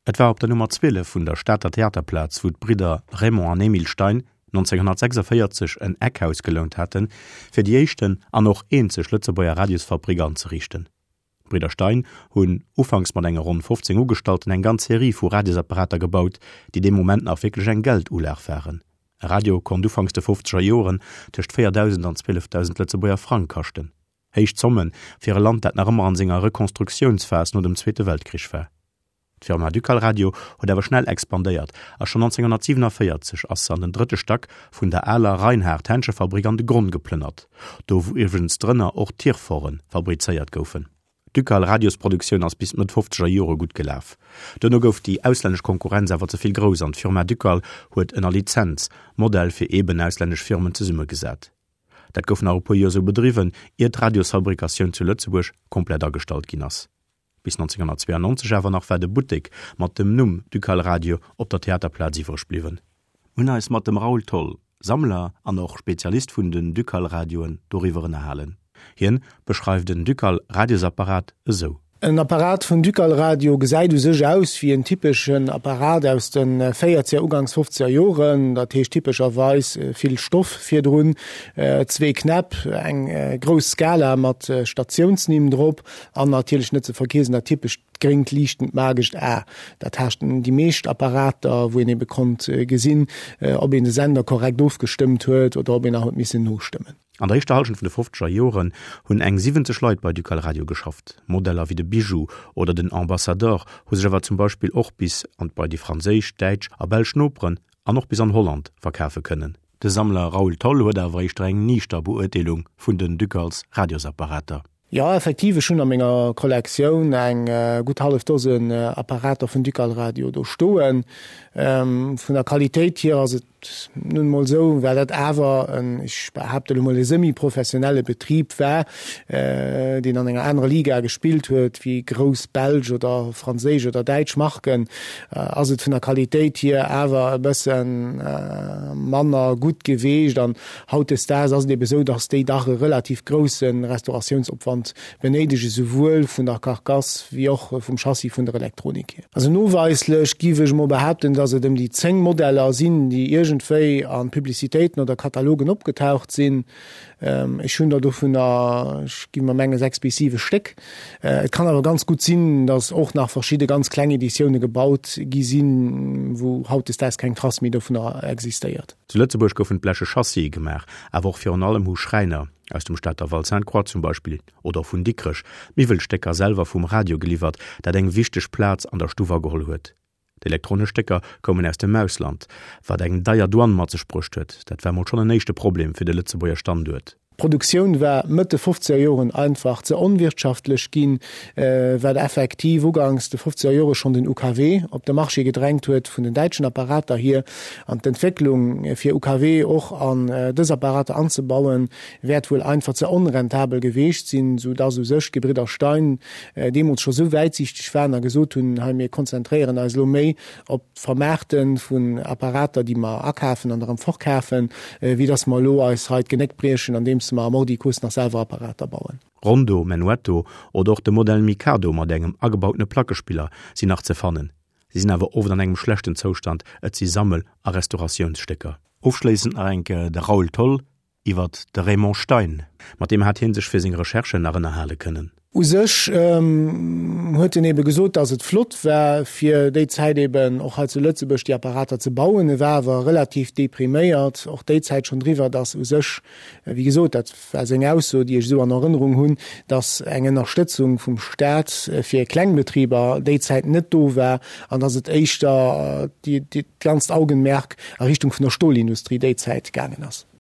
Et war op der Nummer 12 vun der Stater Theaterplaz, wou d'Bridder Raymond an Emile Stein 1946 en Eckhaus gelount haten, fir déi éischten an och eenzeg Lëtzebuerger Radiosfabrik anzeriichten. D'Bridder Stein hunn, ufanks mat enge ronn 15 Ugestallten, eng ganz Serie vu Radiosapparater gebaut, déi dee Moment nach wierklech eng Geldulag waren. E Radio konnt ufanks de fofzeger Joren tëscht 4.000 an 12.000 Lëtzebuerger Frang kaschten. Héich Zomme fir e Land, dat nach ëmmer an senger Rekonstruktiounsphas no dem Zweete Weltkrich war. D'Firma Ducal Radio huet awer schnell expandéiert a schonn 1947 ass se an den drëtte Stack vun der aler Reinhard-Henschefabrik an de Gronn geplënnert, do wou iwwregens drënner och Tirfore fabrizéiert goufen. D'Ducal Radiosproduktioun ass bis d'Mëtt fofzeger Jore gutt gelaf. Duerno gouf déi auslännesch Konkurrenz awer ze vill grouss an d'Firma Ducal huet ënner Lizenz Modell fir eeben auslännesch Firmen zesummegesat. Dat gouf nach e puer Joer sou bedriwwen, ier d'Radiosfabrikatioun zu Lëtzebuerg komplett agestallt ginn ass. Bis 1992 awer nach war de Buttek mat dem Numm Ducal Radio op der Theaterplaz iwwreg bliwwen. Mir hunn eis mat dem Raoul Tholl, Sammler an och Spezialist vun den Ducal Radioen, doriwwer ënnerhalen. Hien beschreift en Ducal Radiosapparat esou. En Apparat vun Ducal Radio gesäit u sech aus wéi en typeschen Apparat aus de véierzeger, uganks fofzeger Joren, dat heescht typescherweis vill Stoff virdrun, zwee Knäpp, eng grouss Skala mat Statiounsnimm drop, An natierlech net ze vergiesen dat typescht gréngt liichtend magescht A. Dat haten déi meescht Apparater, wou een ebe konnt gesinn, ob een de Sender korrekt ofgestëmmt huet oder ob een nach huet missen nostëmmen. An der éischter Hallschent vun de fofzeger Joren hunn eng 70 Leit bei Ducal Radio geschafft. Modeller wéi de Bijou oder den Ambassador hu sech awer zum Beispill och bis an bei déi franséisch, däitsch a belsch Noperen an och bis an Holland verkafe kënnen. De Sammler Raoul Tholl huet awer éischter eng niichter Beurteelung vun den Ducals Radiosapparater. Jo, effektiv, ech hunn a menger Kollektioun eng gutt hallef Dosen Apparater vun Ducal Radio do stoen. Vun der Qualitéit hier ass et nun emol esou, well dat awer en, ech behaapte elo mol, e semi-professionelle Betrib war, deen an enger anerer Liga gespillt huet wéi grouss belsch oder franséisch oder däitsch Marken, ass et vun der Qualitéit hier awer e bësse manner gutt geweecht. An Hautdesdaags ass et ebe sou, dass déi dach e relativ grousse Restauratiounsopwand benéidegen, souwuel vun der Carcasse wéi och vum Chassis vun der Elektronik hier. Also noweislech giff ech emol behaapten, dass et ëm déi 10 Modeller sinn, déi iergendwéi a Publicitéiten oder Katalogen opgetaucht sinn. Ech hunn der dovunner, ech gi mer mengen, 6 bis 7 Stéck. Et kann awer ganz gutt sinn, dass och nach verschidde ganz kleng Editioune gebaut gi sinn, wou hautdesdaags keng Trace méi dovunner existéiert. Zu Lëtzebuerg goufen d'bleche Chassië gemaach, awer och virun allem hu Schräiner, aus dem Stater Val Sainte-Croix zum Beispill oder och vun Dikrech, d'Miwwelstécker selwer vum Radio geliwwert, dat eng wichteg Plaz an der Stuff ageholl huet. D'elektronesch Stécker koumen aus dem Ausland, wat eng deier Douane mat sech bruecht huet. Dat war mol schonn en éischte Problem fir de Lëtzebuerger Standuert. D'Produktioun war Mëtt de fofzeger Joren einfach ze onwirtschaftlech ginn, wat effektiv uganks de fofzeger Jore schonn den UKW op de Marché gedrängt huet vun den däitschen Apparater hier. An d'Entwécklung fir UKW och an dës Apparater anzebauen, wäert wuel einfach ze onrentabel geweecht sinn, sou dass u sech d'Gebridder Stein deemools scho sou wäitsiichteg waren a gesot hunn, hei mir konzentréieren eis elo méi op d'Vermaarte vun Apparater, déi mer akafen an erëm fortkafen, wéi dass mer elo eis hei d'Genéck briechen, andeems mer am Ordicus nach selwer Apparater bauen. Rondo, Menuetto oder och de Modell Mikado mat engem agebautene Plackespiller sinn nach ze fannen. Si sinn awer oft an engem schlechten Zoustand, et si Sammel a Restauratiounsstécker. Ofschléissend nach eng Kéier de Raoul Tholl, Iwwert de Raymond Stein, mat deem hat hie sech fir seng Recherchen nach ënnerhale kënnen. U sech huet en ebe gesot, datt et flott war, fir déi Zäit eben och hei zu Lëtzebuerg déi Apparater ze bauen. E war awer relativ depriméiert och déi Zäit schonn driwwer, datt u sech, wéi gesot, dat war seng Ausso, déi ech esou an Erënnerung hunn, datt eng Ënnerstëtzung vum Staat fir Klengbetriber déi Zäit net do war an datt et éischter dat ganzt Augenmerk a Richtung vun der Stolindustrie déi Zäit gaangen ass.